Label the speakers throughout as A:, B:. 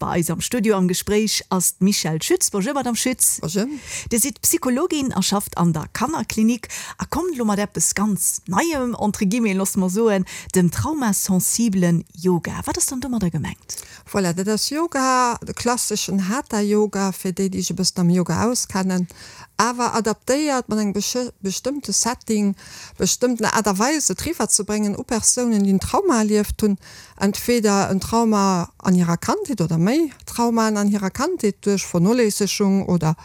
A: Bei eis am Studio am Gespréich ass d'Michèle Schütz. Bonjour Madame Schütz.
B: Bonjour.
A: Dir sidd Psychologin a schafft an der Kannerklinik a kommt elo mat eppes ganz Neiem, entre guillemets, loosse mer soen, dem traumasensiblen Yoga. Wat ass dann domadder gemengt?
B: Voilà, dat ass Yoga, de klasseschen Hatha Yoga, fir déi, déi sech e bëssen am Yoga auskennen, awer adaptéiert mat engem bestëmmte Setting, bestëmmten Aart a Weis et riwwer ze bréngen u Persounen, déi en Trauma erlieft hunn, entweder en Trauma an hirer Kandheet oder méi Traumaen an hirer Kandheet duerch Vernoléissegung oder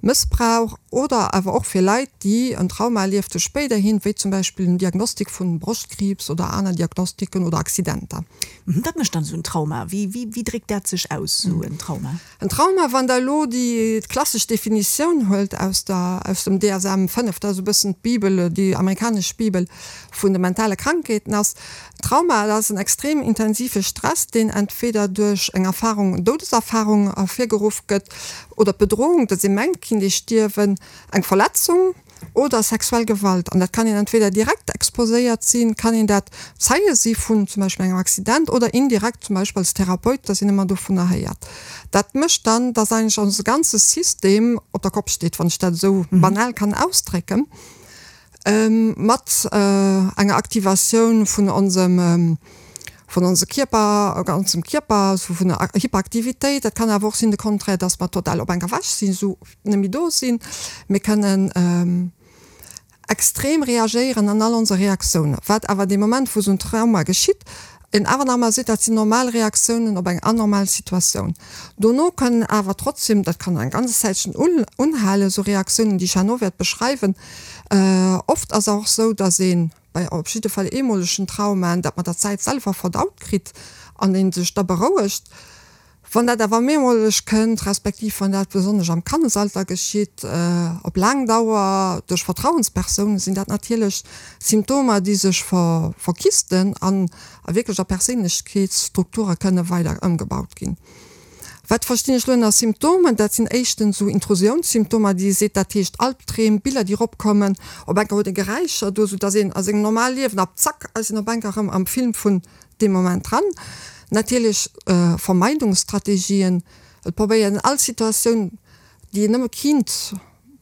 B: Mëssbrauch oder awer och fir Leit, déi en Trauma erlieft hu spéiderhin, wéi zum Beispill den Diagnostik vu Broschtkriibs oder aner Diagnostiken oder Accidenter.
A: Wat mécht dann esou en Trauma? Wéi, wéi dréckt dat sech aus, esou en Trauma?
B: En Trauma, wann Der elo déi klassesch Definitioun huelt aus der, aus dem DSM 5, dat ass e bëssen d'Bibel, déi amerikanesch Bibel vun de mentale Krankheeten ass, Trauma, dat ass en extrem intensive Stress, deen entweder duerch eng Erfahrung, Doudeserfahrung ervirgeruff gëtt, oder d'Bedrohung, datt ee mengt kinnt ee stierwen, eng Verletzung, oder sexuell Gewalt. An dat kann een entweder direkt exposéiert sinn, kann een dat Zeie si vun zum Beispill engem Accident oder indirekt zum Beispill als Therapeut, dass een ëmmer dovunner héiert. Dat mécht dann, dass eigentlech onse ganze System op der Kopp steet, wann ech dat esou banal kann ausdrécken, mat enger Aktivatioun vun onsem vun onse Kierper, ganzem Kierper, esou vun der Hyperaktivitéit. Dat kann awer och sinn de Contraire, dass mer total op enker ewech sinn, esou net méi do sinn. Mir kënnen extrem reagéieren an all onse Reaktiounen, wat awer dee Moment, wou esou en Trauma geschitt, een awer nach ëmmer seet, dat sinn normal Reaktiounen op eng anormal Situatioun. Dono kënnen awer trotzdem, dat kann eng ganz Zäitchen unhalen, esou Reaktiounen, déi ech herno wäert beschreiwen. Oft ass och esou, dass een bei op jidde Fall eemolegen Traumaen dat mat der Zäit selwer verdaut kritt an ee sech da berouegt. Wann dat awer mehrmoleg kënnt, respektiv wann dat besonnesch am Kannesalter geschitt, op laang Dauer duerch Vertrauenspersounen, sinn dat natierlech Symptomer, déi sech verkisten an a wierklech a Perséinlechkeetsstrukture kënne weider ëmgebaut ginn. Wat verstinn ech elo ënner Symptomen? Dat sinn éischtens esou Intrusiounssymptomer, déi ee seet, dat heescht Albdreem, Biller, déi eropkommen, op enker huet ee Geräischer do, esou dass een a sengem normale Liewen ab zack ass een op enker erëm am Film vun Dee Moment dran. Natierlech Vermeidungsstrategien, et probéiert een all Situatioun, déi een nëmme kinnt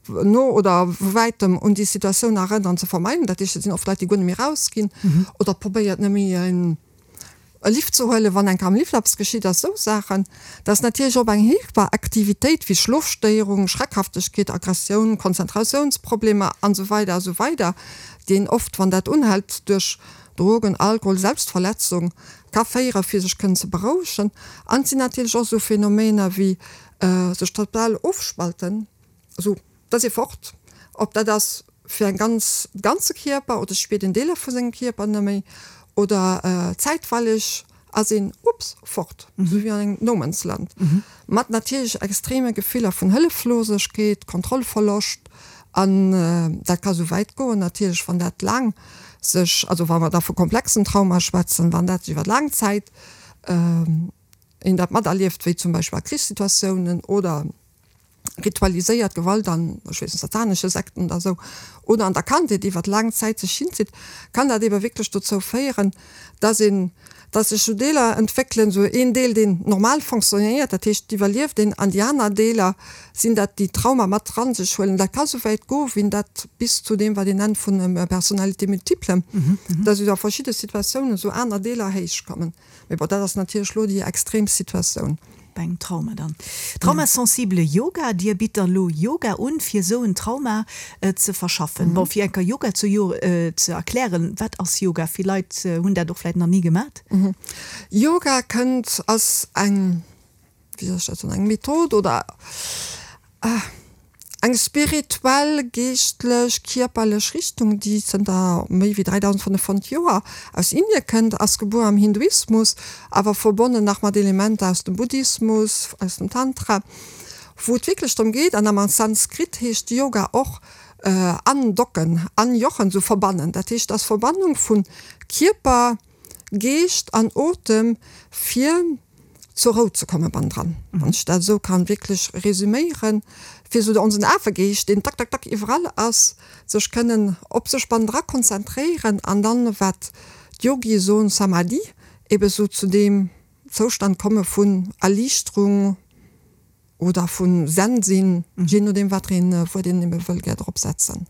B: no oder vu wäitem un déi Situatioun erënneren, ze vermeiden. Dat heescht, et sinn oft Leit, déi guer net méi rausginn oder probéiert net méi e Lift ze huelen, wann eng Kéier am Lift eppes geschitt ass, esou Saachen. Dat ass natierlech och eng Hyperaktivitéit wéi Schlofstéierung, Schreckhaftegkeet, Aggressioun, Konzentratiounsproblemer an esou weider a sou weider, déi een oft, wann dat unhält, duerch Drogen, Alkohol, Selbstverletzung ka féieren, fir sech kënnen ze berouegen. An et sinn natierlech och esou Phänomener wéi sech total ofspalten, esou da ass ee fort, ob dat ass fir eng ganz ganze Kierper oder spiert een Deeler vu sengem Kierper net méi oder zäitweileg ass een, ups, fort, esou wéi an engem No Man's Land, mat natierlech extreme Gefiller vun Hëlleflosegkeet, Kontrollverloscht an dat ka sou wäit goen natierlech, wann dat laang sech, also wa mer da vu komplexen Trauma schwätzen, wann dat sech iwwer laang Zäit een dat materlieft, wéi zum Beispill a Krichssituatiounen oder ritualiséiert Gewalt an, ech weess net, satanesche Sekten oder esou, oder an der Kandheet iwwert laang Zäit sech hinzitt, kann dat ebe wierklech dozou féieren, dass een, dass sech esou Deeler entwéckelen, esou een Deel, deen normal fonctionnéiert, dat heescht, iwwerlieft een, an déi aner Deeler sinn dat, déi Trauma mat dran sech huelen. Dat ka souwäit goen, wéi dat bis zu deem, wat een nennt vun Personnalité multiple, dass esou a verschidde Situatiounen esou aner Deeler héichkommen. Mee bon, dat ass natierlech elo déi extrem Situatioun.
A: Bei engem Trauma dann. Trauma-sensible Yoga, Dir bitt dann elo Yoga un, fir esou en Trauma ze verschaffen. Bon, fir eng Kéier Yoga ze ze erklären, wat ass Yoga? Vill Leit hunn dat och vläicht nach ni gemat.
B: Yoga kënnt, ass eng, wéi soll ech dat soen, eng Method oder eng spirituell, geeschtlech, kierperlech Richtung, déi zënter méi wéi 3500 Joer aus Indie kënnt, ass gebuer am Hinduismus, awer verbonnen nach mat Elementer aus dem Buddhismus, aus dem Tantra, wou et wierklech drëm geet, an am Sanskrit heescht Yoga och andocken, anjochen, sou verbannen, dat heescht, et ass Verbannung vu Kierper, Geescht an Otem fir zur Rou ze kommen bannendran, wann ech dat esou kann wierklech resüméieren, fir esou onsen Afegeescht, deen tak tak tak iwwerall ass, sech kënnen op sech bannendra konzentréieren an dann, wat d'Yogie soen, Samadhi, ebe sou zu deem. Zoustand komme vun Erliichterung oder vu Zen sinn, jee nodeem wat fir een Wuert een ebe wëll gär drop setzen.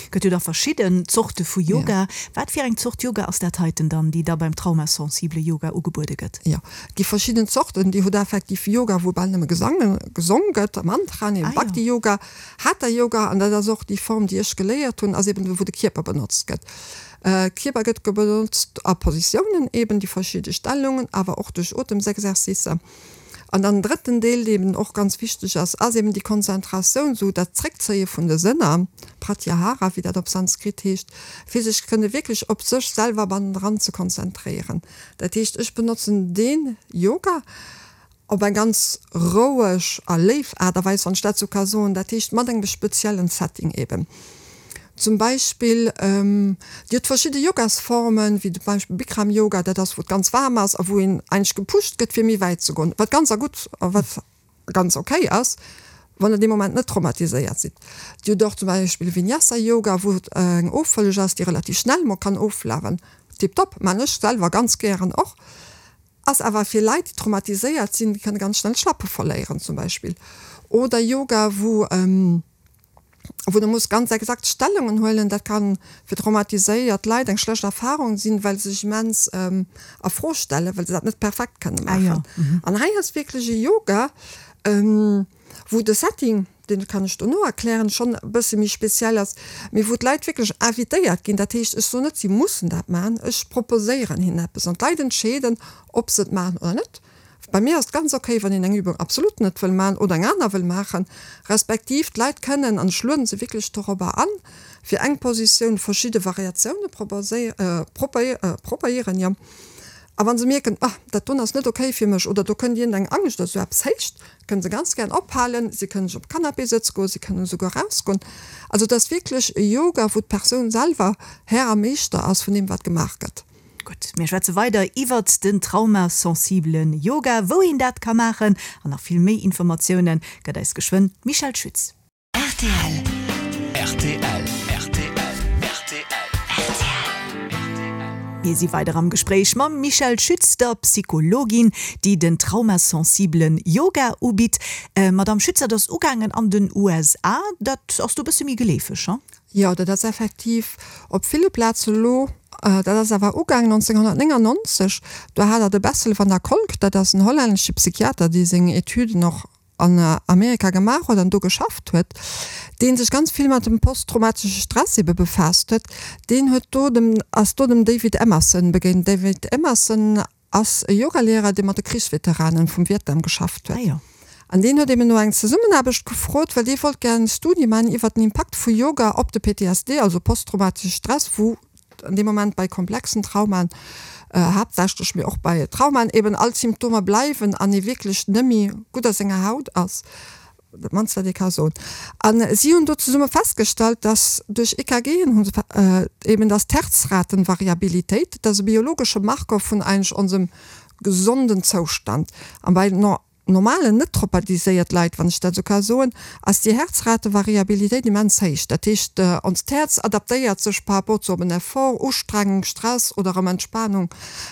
A: Gëtt jo da verschidden Zorte vu Yoga. Wat fir eng Zort Yoga ass dat heiten dann, déi da beim traumasensible Yoga ugebuede gëtt?
B: Jo, et gi verschidden Zorten. Dir hutt effektiv Yoga, wou bal nëmme Gesang gesong gëtt, Mantraen, eben Bhakti Yoga, Hatha Yoga, an dat ass och déi Form, déi ech geléiert hunn, ass eben wou de Kierper benotzt gëtt. Kierper gëtt benotzt a Positiounen, eben déi verschidde Stellungen, awer och duerch Otemsexercicer. An dann den drëtten Deel, deen och ganz wichteg ass, ass eben déi Konzentratioun, esou dat Zréckzéie vun de Sënner, Pratyahara, wéi dat op Sanskrit heescht, fir sech kënne wierklech op sech selwer bannendran ze konzentréieren. Dat heescht, ech benotzen dee Yoga op eng ganz roueg a léif Aart a Weis, wann ech dat esou ka soen, dat heescht mat engem speziellen Setting eben. Zum Beispill, Dir hutt verschidde Yogasformen, wéi zum Beispill Bikram Yoga, dat ass wou et ganz waarm ass a wou een eigentlech gepusht gëtt fir méi wäit ze goen, wat ganz a gutt a wat ganz ok ass, wann der dee Moment net traumatiséiert sidd. Dir hutt och zum Beispill Vinyasa Yoga, wou et eng Offolleg ass, déi relativ schnell mol kann oflafen, tiptop, maan ech selwer ganz gären och, ass awer fir Leit déi traumatiséiert sinn, déi kënne ganz schnell d'Schlappe verléieren zum Beispill. Oder Yoga wou. wou de muss ganz exakt Stellungen huelen, dat kann fir traumatiséiert Leit eng schlecht Erfahrung sinn, well se sech immens a Fro stellen, well se dat net perfekt kënne maachen. An hei ass wierklech e Yoga, wou de Setting, deen kann ech dono erklären, schonn e bësse méi speziell ass, mee wou d'Leit wierklech invitéiert ginn. Dat heescht, ech soen net, si mussen dat maachen, ech proposéieren hinnen eppes an d'Leit entscheeden, ob se et maachen oder net. Bei mir ass et ganz ok, wann een eng Übung absolut net wëll maachen oder eng aner wëll maachen, respektiv d'Leit kënnen, an ech lueden se wierklech dorobber an, fir eng Positioun verschidde Variatioune probéieren, jo. A wa se mierken, ah, dat doen ass net ok fir mech oder do kënnt iergendeng Angscht oder esou eppes héicht, kënne se ganz gären ophalen, se kënnen sech op de Canapé sëtze goen, se kënnen esouguer erausgoen. Also et ass wierklech e Yoga, wou d'Persoun selwer Här a Meeschter ass vun deem, wat gemaach gëtt.
A: Gutt, mir schwätze weider iwwert den traumasensiblen Yoga, wou een dat ka maachen an nach vill méi Informatioune gëtt eis geschwënn d'Michèle Schütz.
C: Rtl. Rtl. Rtl. Rtl.
A: Mir si weider am Gespréich mam Michèle Schütz, der Psychologin, déi den traumasensiblen Yoga ubitt. Madamm Schütz, dat ass ugaangen an den USA, dat ass do e bësse méi geleefeg, he?
B: Jo, dat ass effektiv op ville Plaze elo. Dat ass awer ugaangen 1999. Do hat der de Bessel van der Kolk, dat ass en hollännesche Psychiater, dee seng Etüden och an Amerika gemaach huet an do geschafft huet, dee sech ganz vill mat dem posttraumatesche Stress ebe befaasst huet. Deen huet do dem, ass do dem David Emerson begéint. David Emerson ass e Yogalehrer, dee mat de Krichsveteranen vum Vietnam geschafft huet. An deen huet eben no eng Zesummenaarbecht gefrot, well dee wollt gär eng Studie maachen iwwert den Impakt vu Yoga op de PTSD, also posttraumatesche Stress, wou an deem Moment bei komplexen Traumaen haaptsächlech, mee och bei Traumaen eben all d'Symptomer bleiwen an ee wierklech nëmmi gutt a senger Haut ass. Dat mannst wat ee ka soen. A si hunn do zesumme festgestallt, dass duerch EKGen hu se eben, dass d'Herzratenvariabilitéit, dat ass e biologesche Marker vun eigentlech onsem gesonden Zoustand, an bei normalen, net traumatiséiert Leit, wann ech dat esou ka soen, ass déi Herzratevariabilitéit immens héich. Dat heescht, onst Häerz adaptéiert sech par rapport zu op en Effort, Ustrengung, Stress oder erëm Entspanung.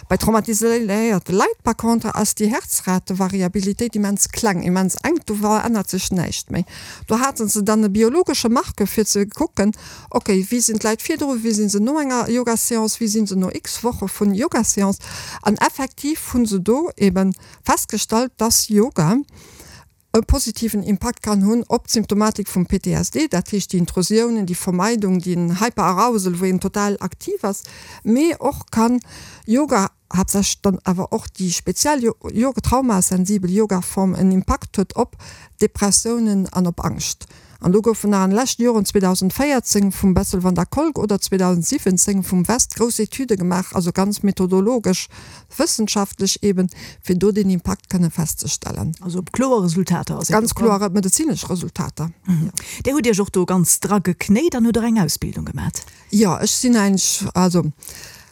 B: Bei traumatiséierte Leit par contre ass déi Herzratevariabilitéit immens kleng, immens enk, do verännert sech näischt méi. Do hate se dann e biologesche Marqueur fir ze kucken, ok, wéi sinn d'Leit virdru, wéi si se no enger Yogaséance, wéi si se no x Woche vun Yogaséance. An effektiv hu se do ebe festgestallt, dass Yoga e positiven Impakt kann hunn op d'Symptomatik vum PTSD, dat heescht déi Intrusiounen, déi Vermeidung, deen Hyperarousal, wou een total aktiv ass, mee och kann Yoga, haaptsächlech dann awer och déi speziell Yoga, traumasensibel Yogaform, en Impakt huet op Depressiounen an op Angscht. An do goufen nach an de leschte Joren, 2014 vum Bessel van der Kolk oder 2017 vum West, grouss Etüde gemaach, also ganz methodologesch, wëssenschaftlech eben, fir do deen Impakt kënne festzestellen.
A: Also op kloer Resultater ass een do
B: Ganz komm. kloer medezinesch Resultater, jo.
A: Dir hutt Iech och do ganz dra geknéit an hutt och eng Ausbildung gemat.
B: Jo, ech sinn eigentlech, also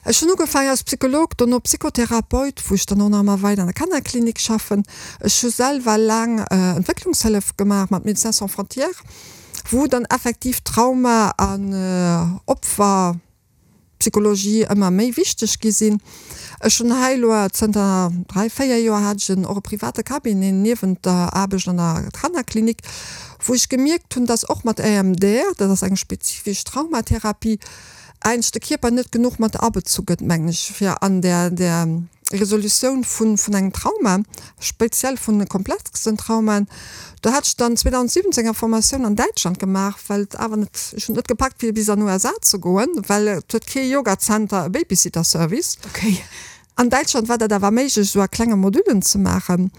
B: ech hunn ugefaangen als Psycholog, dono Psychotherapeut, wou ech dann och nach ëmmer weider an der Kannerklinik schaffen. Ech hu selwer laang Entwécklungshëllef gemaach mat Médecins sans frontières, wou dann effektiv Trauma an Opfer. Psychologie ëmmer méi wichteg gi sinn. Ech hunn hei elo zënter 3, 4 Joer hat ech en och e private Cabinet niewent der Aarbecht an der Kannerklinik, wou ech gemierkt hunn, dass och mat EMDR, dat ass eng spezifesch Traumatherapie, eigentlech de Kierper net genuch mat abezu gëtt, mengen ech, fir an där där Resolutioun vun vun engem Trauma, speziell vun komplexen Traumaen. Do hat ech dann 2017 eng Formatioun an Däitschland gemaach, well et awer net, ech hunn et net gepackt fir bis an USA ze goen, well et huet kee Yoga-Zenter e Babysitter-Service.
A: Okay.
B: An Däitschland war dat awer méiglech esou a klenge Modullen ze maachen.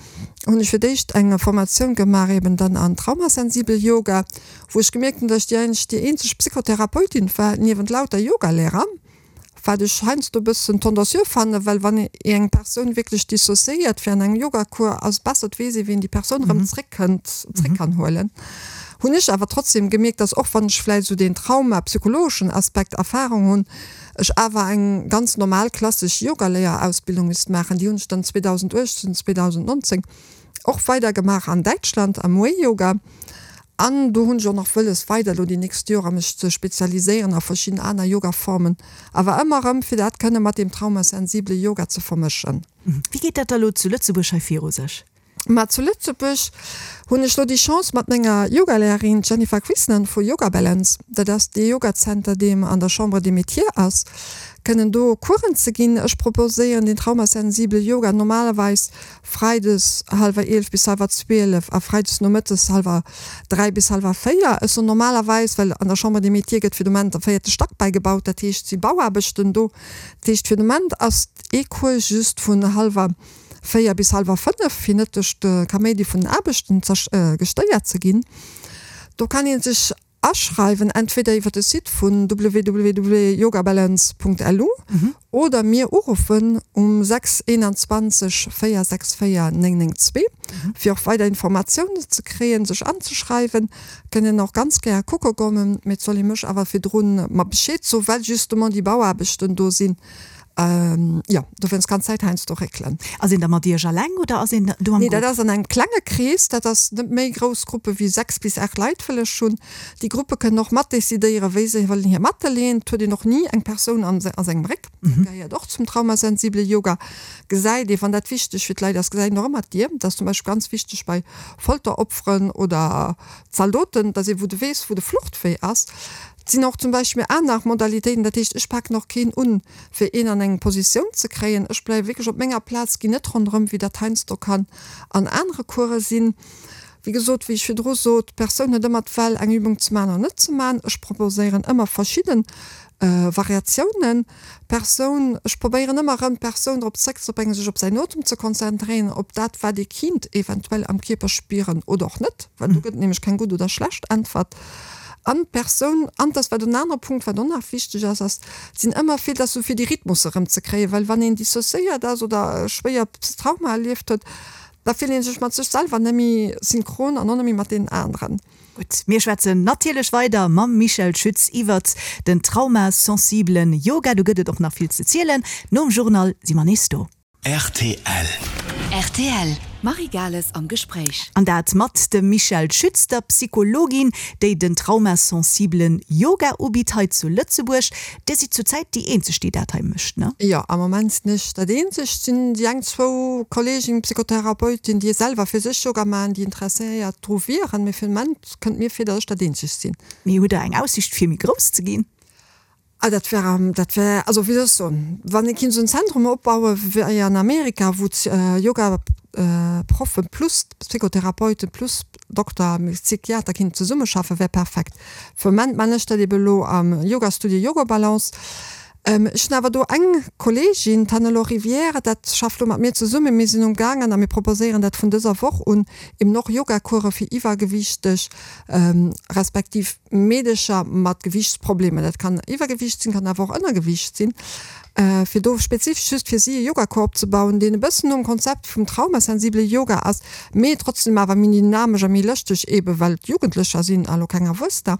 B: Hunn ech fir d'éischt eng Formatioun gemaach eben dann an traumasensibel Yoga, wou ech gemierkt hunn, datt ech déi eigentlech déi eenzeg Psychotherapeutin war niewent lauter Yogalehrer. Wat ech heiansdo e bëssen tendancieux fannen, well wann ee eng Persoun wierklech dissociéiert fir an engem Yogacours ass, besser et weess ee wéi een déi Persoun erëm zréckkënnt, zréck kann huelen. Hunn ech awer trotzdem gemierkt, dass och wann ech vläicht esou deen traumapsychologeschen Aspekt Erfahrung hunn, ech awer eng ganz normal klassesch Yogaléierausbildung misst maachen. Déi hunn ech dann 2018, 2019 och weider gemaach an Däitschland am Way Yoga. An do hunn ech och nach wëlles weider elo déi nächst Jorer mech ze spezialiséieren a verschidden aner Yogaformen, awer ëmmer erëm fir dat kënne mat deem traumasensibele Yoga ze vermëschen.
A: Wéi geet dat da lo zu Lëtzebuerg hei viru sech?
B: Ma zu Lëtzebuerg hunn ech lo déi Chance mat menger Yogalehrerin Jennifer Quisnen vu Yoga Balance, dat ass dee Yogazenter deem an der Chambre des Métiers ass, kënnen do Coursen ze ginn. Ech proposéieren den traumasensibele Yoga normalerweis Freides hallwer 11 bis hallwer 12 a freides nomëttes hallwer 3 bis hallwer 4. Ech soen normalerweis, well an der Chambre des Métiers gëtt fir de Moment e véierte Stack bäigebaut, dat heescht, et si Bauaarbechten do. Dat heescht, fir de Moment ass ee Cours just vun hallwer 4 bis hallwer 5, fir net duerch de Kaméidi vun den Aarbechten gestéiert ze ginn. Do kann ee sech Aschreiwen, entweder iwwer de Site vun www.yogabalance.lu oder mir uruffen um 6 21 464 992 fir och weider Informatiounen ze kréien, sech anzeschreiwen. Kënnen och ganz gär kucke kommen, mee et soll ee mech awer virdrun mer Bescheed soen, well justement déi Bauaarbechten do sinn. Jo, dowéinst kann d'Zäit heiansdo réckelen.
A: Ass een da mat Iech alleng oder ass een do am
B: Nee, dat ass an engem klenge Krees. Dat ass net méi grouss Gruppe wéi 6 bis 8 Leit wëll ech hunn. Déi Gruppe kënnen och mat decidéieren, wéi se wëllen hir Matte leeën. Et huet een och ni eng Persoun a sengem Réck. Dat gehéiert och zum traumasensibele Yoga. Gesäit ee, wann dat wichteg fir d'Leit ass, gesäit een och ëmmer d'Dier. Dat ass zum Beispill ganz wichteg bei Folteropferen oder Zaldoten, dass ee wou de weess, wou de Fluchtwee ass. Et sinn och zum Beispill aner Modalitéiten, dat heescht, ech paken och keen un, fir een an eng Positioun ze kréien. Ech bleiwe wierklech op menger Plaz, ginn net ronderëm, wéi dat heiansdo kann an anere Course sinn. Wéi gesot, wéi ech virdru sot, d'Persoun huet ëmmer d'Wahl, eng Übung ze maachen oder net ze maachen. Ech proposéieren ëmmer verschidde Variatiounen. D'Persoun, ech probéieren ëmmer erëm, d'Persoun drop zréckzebréngen, sech op säin Otem ze konzentréieren, op dat, wat ee kinnt eventuell am Kierper spieren oder och net, well do gëtt et nämlech keng gutt oder schlecht Äntwert. An d'Persoun, an dass, wat en anere Punkt, wat och nach wichteg ass, ass, et sinn ëmmer vill, dass sou fir déi Rhythmus erëmzekréien, well wann een dissociéiert ass oder e schwéiert Trauma erlieft huet, da fillt ee sech mat sech selwer net méi synchron an och net méi mat deenen aneren.
A: Gutt, mir schwätzen natierlech weider mam Michèle Schütz iwwert den traumasensiblen Yoga. Do gëtt et och nach vill ze zielen. Nom Journal si mer nees do.
C: Rtl.
D: Rtl, Marie Gales am Gespréich.
A: An dat mat dem Michèle Schütz, der Psychologin, déi den traumasensiblen Yoga ubitt hei zu Lëtzebuerg. Dir sidd zur Zäit déi eenzeg, déi dat hei mécht, ne?
B: Jo, am Moment sinn ech dat eenzegt. Et sinn déi eng zwou Kolleegen, Psychotherapeutin, déi selwer fir sech Yoga maachen, déi interesséiert dru wieren. Mee fir den Moment kënnt mir vir, datt ech dat eenzegt sinn.
A: Mee hutt Der eng Aussicht, fir méi grouss ze ginn?
B: Ah, dat wär, dat wär, also wéi soll ech soen, wann ee kinnt esou en Zentrum opbaue wéi an Amerika, wou d'Yoga-Proffen plus Psychotherapeuten plus Dokter, Psychiater kinnten zesummeschaffen, wär perfekt. Fir Moment man ech dat ebe elo am Yoga-Studio Yoga Balance. Ech hunn awer do eng Kolleegin, d'Hannelore Rivière, dat schafft elo mat mir zesummen. Mir sinn umgaangen a mir proposéieren dat vun dëser Woch un, eben och Yoga-Course fir Iwwergewiichteg respektiv Meedecher mat Gewiichtsproblemer, dat kann Iwwergewiicht sinn, kann awer och Ënnergewiicht sinn, fir do spezifesch just fir si e Yogacours opzebauen, deen e bëssen nom Konzept vum traumasensibele Yoga ass, mee trotzdem awer méi dynamesch a méi lëschteg, ebe well et Jugendlecher sinn a lo keng Erwuesster.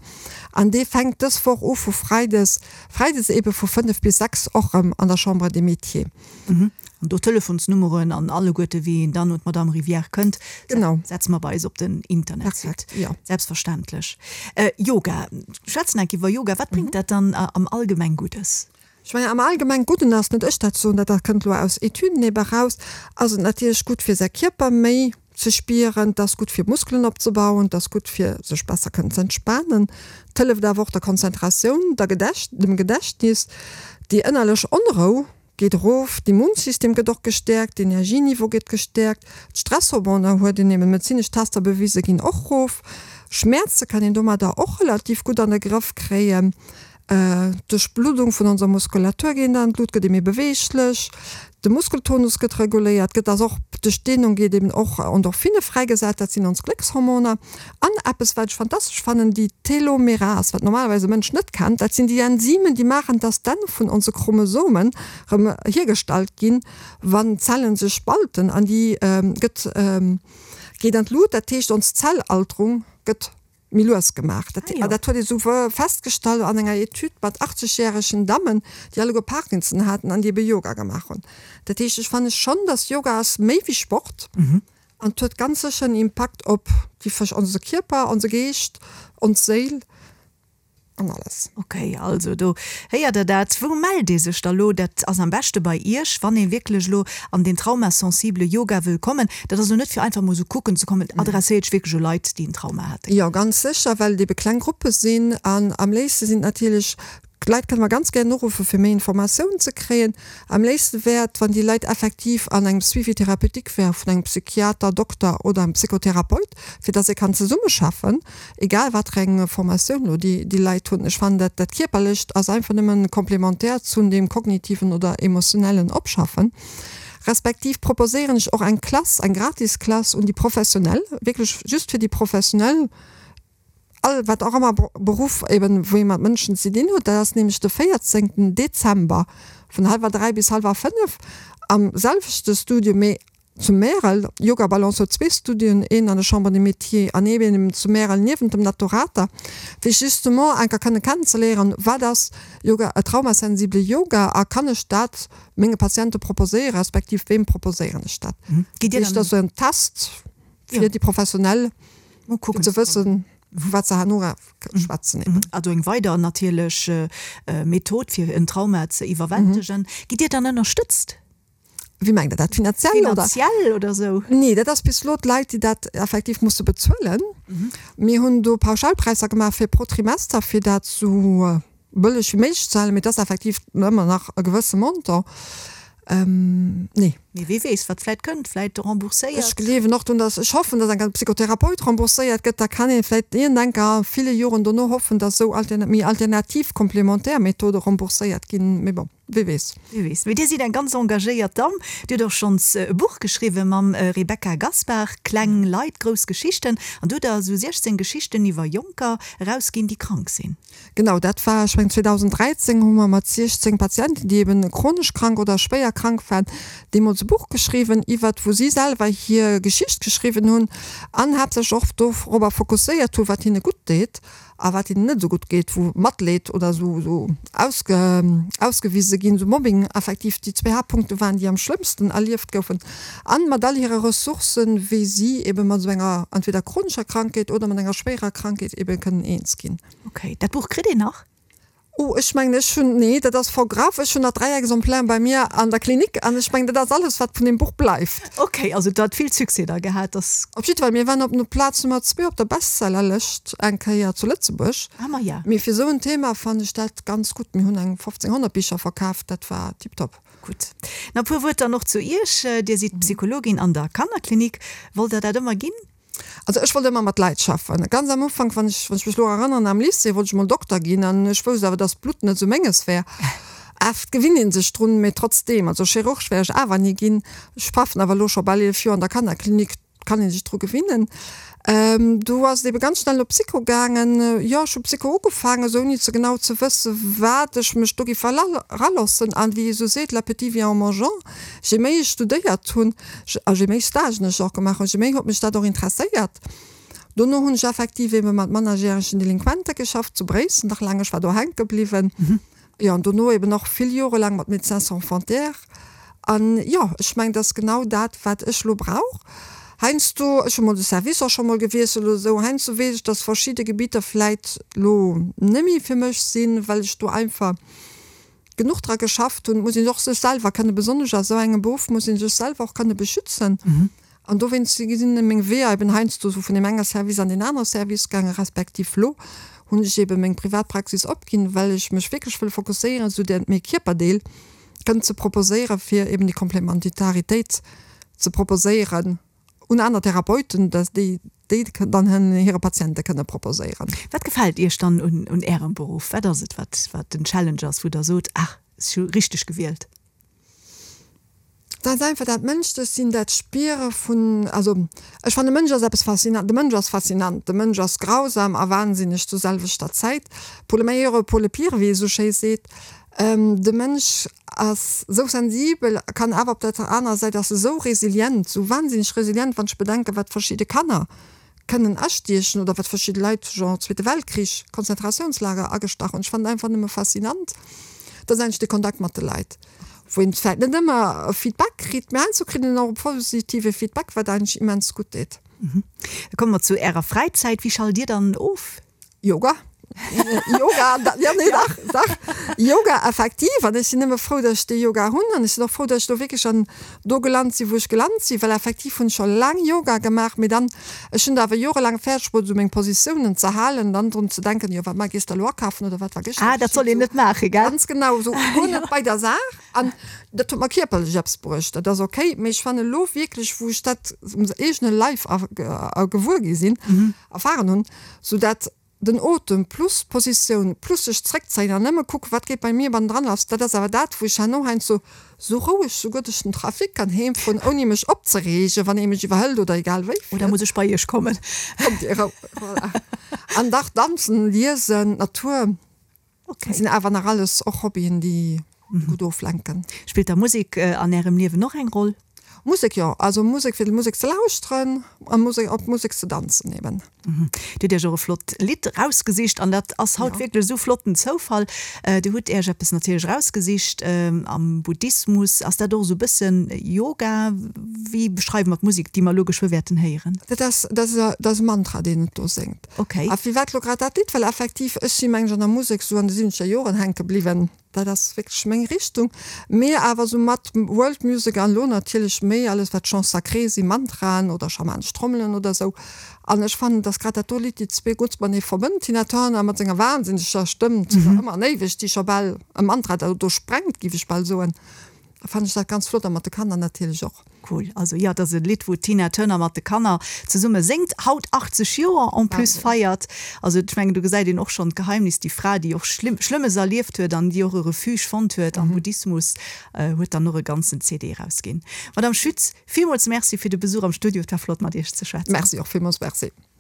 B: An dee fänkt dës Woch u vu Freides, Freides ebe vu 5 bis 6 och rëm an der Chambre des Métiers.
A: An do d'Telefonsnummeren an alleguerte wéi een dann un d'Madame Rivière kënnt, setze mer bei eis op den Internetsite. Selbstverständlech. Yoga, schwätzen enk iwwer Yoga. Wat bréngt dat dann am Allgemeng Guddes?
B: Ech mengen am allgemeng Gudden ass, net ech dat soen, dat kënnt elo aus Etüden ebe eraus, ass et natierlech gutt fir säi Kierper méi ze spieren, et ass gutt fir Muskelen opzebauen, et ass gutt fir sech besser kënnen ze entspanen, et hëlleft awer och der Konzentratioun, der Gedächt, dem Gedächtnis, déi ënnerlech Onrou geet erof, d'Immunsystem gëtt och gestäerkt, d'Energieniveau gëtt gestäerkt, d'Stresshormoner, huet een eben medezinesch Tester bewisen, ginn och erof, Schmäerze kann een domadder och relativ gutt an de Grëff kréien. D'Duerchbluddung vun onser Muskulatur geet an d'Lut, gëtt ee méi beweeglech, de Muskeltonus gëtt reguléiert, gëtt ass och duerch d'Dehnung geet eben och Endorphine fräigesat, dat sinn ons Gléckshormoner. An eppes wat ech fantastesch fannen, déi Telomerase, wat normalerweis e Mënsch net kennt, dat sinn déi Enzymen déi maachen, dass d'Enn vun onse Chromosomen rëm hiergestallt ginn, wann d'Zellen sech spalten an déi gëtt geet an d'Lut, dat heescht ons Zellalterung gëtt méi lues gemaach. Dat, ah, dat huet ee sou festgestallt an enger Etüd mat 80 järegen Dammen, déi alleguer Parkinson haten an déi ebe Yoga gemaach hunn. Dat heescht, ech fanne schonn, dass Yoga ass méi wéi Sport an et huet ganz sécher en Impakt op déi versch-, onse Kierper, onse Geescht, ons Séil an alles.
A: Ok, also do héiert der dat. Wou mellt ee sech da lo? Dat ass am beschte bei Iech, wann ee wierklech elo an deen traumasensible Yoga wëll kommen. Dat ass elo net fir einfach mol esou kucken ze kommen, et adresséiert sech wierklech u Leit, déi en Trauma haten.
B: Jo, ganz sécher, well et ebe kleng Gruppe sinn an am léifste sinn et natierlech D'Leit kënne mer ganz gären uruffe fir méi Informatiounen ze kréien. Am léifste wär et, wann déi Leit effektiv an engem Suivi thérapeutique wäre vun engem Psychiater, Dokter oder engem Psychotherapeut, fir dass ee kann zesummeschaffen, egal wat fir eng Formatioun elo déi déi Leit hunn. Ech fannen dat dat Kierperlecht ass einfach nëmmen komplementär zu deem kognitiven oder emotionellen Opschaffen. Respektiv proposéieren ech och eng Klass, eng gratis Klass un déi Professionell, wierklech just fir déi Professionell, all wat och ëmmer Beruff eben wou ee mat Mënschen ze dinn huet, dat ass nämlech de 14 Dezember vun hallwer 3 bis hallwer 5 am selwechte Studio, mee zu Märel. Yoga Balance huet zwee Studioen, een an der Chambre des Métiers an ee eben zu Märel niewent dem Naturata, fir justement enker kënne kennenzeléieren, wat ass Yoga, traumasensible Yoga a kann ech dat menge Patiente proposéieren, respektiv weem proposéieren ech dat.
A: Gitt Dir
B: dann. Dat ass esou en Test fir déi Professionell. Fir ze wëssen, vu wat se herno schwätzen
A: eben. Also eng weider natierlech Method, fir en Trauma ze iwwerwältegen. Gitt Dir dann ënnerstëtzt?
B: Wéi mengt Der dat? Finanziell
A: oder? Finanziell oder esou?
B: Nee, dat ass bis elo d'Leit, déi dat effektiv musse bezuelen. Mir hunn do Pauschalpräisser gemaach fir pro Trimester, fir dat esou bëlleg wéi méiglech ze halen, mee et ass effektiv ëmmer nach e gewësse Montant. Nee.
A: Mee wee weess, wat vläit kënnt, vläit rembourséiert.
B: Ech gleewen och drun, dass, ech hoffen, dass eng Psychotherapeut rembourséiert gëtt. Da kann ee vläit iergendenker ville Joren dono hoffen, dass esou méi alternativ, komplementär Methode rembourséiert ginn. Mee bon, wee weess.
A: Wee weess. Mee Dir sidd eng ganz engagéiert Damm. Dir hutt och schonns e Buch geschriwwen mam Rebecca Gaspar, Kleng Leit, grouss Geschichten. An do hutt Der esou 16 Geschichten iwwer Jonker erausginn, déi krank sinn.
B: Genau, dat war, ech mengen 2013 hu mer mat 16 Patienten, déi eben chronesch krank oder schwéier krank waren, deemools e Buch geschriwwen iwwert, wou si selwer hir Geschicht geschriwwen hunn an haaptsächlech och dorobber fokusséiert hu wat hinne gutt deet a wat hinnen net esou gutt geet, wou Matleed oder esou esou ausge ausgewise ginn, esou Mobbing effektiv déi zwee Haaptpunkte waren, déi am schlëmmsten erlieft goufen an mat all hire Ressourcen, wéi si ebe mat esou enger entweder chronescher Krankheet oder mat enger schwéierer Krankheet ebe kënnen eens ginn.
A: Ok, dat Buch kritt een nach?
B: Oh, ech mengen ech hunn, nee, dat ass Vaugraf, ech hunn nach 3 Exemplairen bei mir an der Klinik an ech mengen dat ass alles wat vun deem Buch bleift.
A: Ok, also dat huet vill Succès da gehat, dass.
B: Op jidde Fall, mir waren op Plaz Nummer zwee op der Bestsellerlëscht eng Kéier zu Lëtzebuerg.
A: Ah, ma ja.
B: Mee fir esou en Thema fannen ech dat ganz gutt. Mir hunn eng 1500 Bicher verkaaft, dat war tiptop.
A: Gutt. Na, e puer Wuert dann och zu Iech. Dir sidd Psychologin an der Kannerklinik. Wollt Der dat ëmmer ginn?
B: Also ech wollt ëmmer mat Leit schaffen. Ganz am Ufank, wann ech, wann ech mech elo erënneren, am Lycée wollt ech mol Dokter ginn an ech wousst awer, dass Blutt net esou menges wär. Eft gewinnt een sech drun, mee trotzdeem, also Chirurg wär ech awer ni ginn. Ech schaffen awer elo scho bal 11 Joer an der Kannerklinik, kann een sech dru gewinnen. Do ass et ebe ganz schnell op Psycho gaangen. Jo, ech hu Psycho ugefaangen, esou ouni ze genau ze wësse wat ech mech do giff eralossen. An wéi ee sou seet, l'appétit vient en mangeant. Je méi ech studéiert hunn, A je méi Stagen ech och gemaach hunn, je méi huet mech dat och interesséiert. Dono hunn ech effektiv ebe mat mannerjäregen Delinquente geschafft zu Bréissel nach laang, ech war do hänke bliwwen. Jo, an dono eben och vill Jore laang mat Médecins sans frontières. An jo, ech mengen, dat ass genau dat, wat ech elo brauch. Heiansdo, ech hu mol de Service och scho mol gewiesselt oder esou, heiansdo weess ech, dass verschidde Gebieter vläit elo net méi fir mech sinn, well ech do einfach. genuch dra geschafft hunn, muss een och sech selwer kënne, besonnesch a sou engem Beruff, muss ee sech selwer och kënne beschützen. An dowéinst sinn meng Weeër eben heiansdo sou vun deem enge Service an deen anere Service gaangen, respektiv lo hunn ech eben meng Privatpraxis opginn, well ech mech wierklech wëll fokusséieren, sou dat méi Kierperdeel kënnen ze proposéieren, fir eben déi Komplementaritéit ze proposéieren un aner Therapeuten, dass déi déi dann hire Patiente kënne proposéieren.
A: Wat gefält Iech dann un Ärem Beruff? Wat ass et, wat wat den Challenge ass, wou Der sot, ach, ech hu richteg gewielt?
B: Dat ass einfach dat Mënschlech sinn, dat Spiere vun, also ech fannen, de Mënsch ass eppes faszinant, de Mënsch ass faszinant, de Mënsch ass grausam a wahnsinneg zur selwechter Zäit, pour le meilleur et pour le pire, wéi ee sou schéi seet. De Mënsch ass esou sensibel, kann awer op der anerer Säit ass e sou resilient, sou wahnsinneg resilient, wann ech bedenken, wat verschidde Kanner kënnen astiechen oder wat verschidde Leit, genre Zweete Weltkrich, Konzentratiounslager agestach hunn. Ech fannen et einfach nëmme faszinant. Dat ass eigentlech de Kontakt mat de Leit, wou een vläicht net ëmmer e Feedback kritt, mä heiansdo kritt een och e positive Feedback, wat eigentlech immens gutt deet.
A: Da komme mer zu Ärer Fräizäit. Wéi schalt Dir dann of?
B: Yoga. Yoga, da, ja, nee, dach, dach. Yoga, effektiv. An ech sinn nëmme frou, datt ech dee Yoga hunn. An ech sinn och frou, datt ech do wierklech an do gelant sinn, wou ech gelant sinn. Well effektiv hunn ech scho laang Yoga gemaach, mee dann, ech hunn et awer jorelaang fäerdeg bruet, esou meng Positiounen ze halen, dann drun ze denken, jo, wat mar, gees de elo akafen oder wat war gëschter?
A: Ah, dat soll een net maachen, gell?
B: Ganz genau, esou guer net bei der Saach. An dat huet mer kierperlech eppes bruecht, dat ass okay. Mee ech fannen elo wierklech, wou ech dat um eegene Leif gewuer gi sinn, erfahren hunn, sou dat den Otem plus d'Positioun plus sech zréckzéien an nëmme kucken, wat geet bei mir bannendran lass, dat ass awer dat, wou ech herno heiansdo sou roueg souguer duerch den Trafic kann heemfueren, ouni mech opzereegen, wann ee mech iwwerhëlt oder egal wéi
A: Oder muss ech bei Iech kommen?
B: Kommt Dir, voilà. An dach danzen, liesen, d'Natur.
A: Okay.
B: Sinn awer nach alles och Hobbyen, déi gutt oflenken.
A: Spillt da Musek an Ärem Liewen och eng Roll?
B: Musek, jo. Also Musek fir Musek ze lauschteren a Musek op Musek ze danzen eben.
A: Dir hutt Iech och e flott Lidd erausgesicht an dat ass haut wierklech esou flotten Zoufall. Dir hutt Iech eppes natierlech erausgesicht am Buddhismus. Ass dat och esou e bëssen Yoga? Wéi beschreiwe mer d'Musek, déi mer elo geschwë wäerten héieren?
B: Dat ass, dat ass e Mantra, deen et do séngt.
A: Okay.
B: A firwat lo grad dat Lidd? Well effektiv, ech si mengen ech an der Musek sou an de siwwenzeger Joren hänke bliwwen. Dat ass wierklech meng Richtung. Mee awer sou mat World Music an lo natierlech méi alles wat Chants sacrés si, Mantraen oder schamanesch Trommelen oder sou. An ech fannen, dass grad dat do Lidd déi zwee gutt matenee verbënnt. Tina Turner mat senger wahnsinneger Stëmm, déi ëmmer an éiweg, déi scho bal e Mantra do sprengt, giff ech bal soen. Fannen ech dat ganz flott a mat de Kanner natierlech och.
A: Cool, also jo, et ass e Lidd wou d'Tina Turner mat de Kanner zesumme séngt, haut 80 Joer en plus feiert. Also ech mengen do gesäit een och schonn d'Geheimnis, déi Fra déi och Schlëmmes erlieft huet an déi och e Refuge fonnt huet am Buddhismus, huet dann och e ganzen CD erausginn. Madame Schütz, villmools Merci fir de Besuch am Studio, et war flott mat Iech ze schwätzen.
B: Merci och, villmools Merci.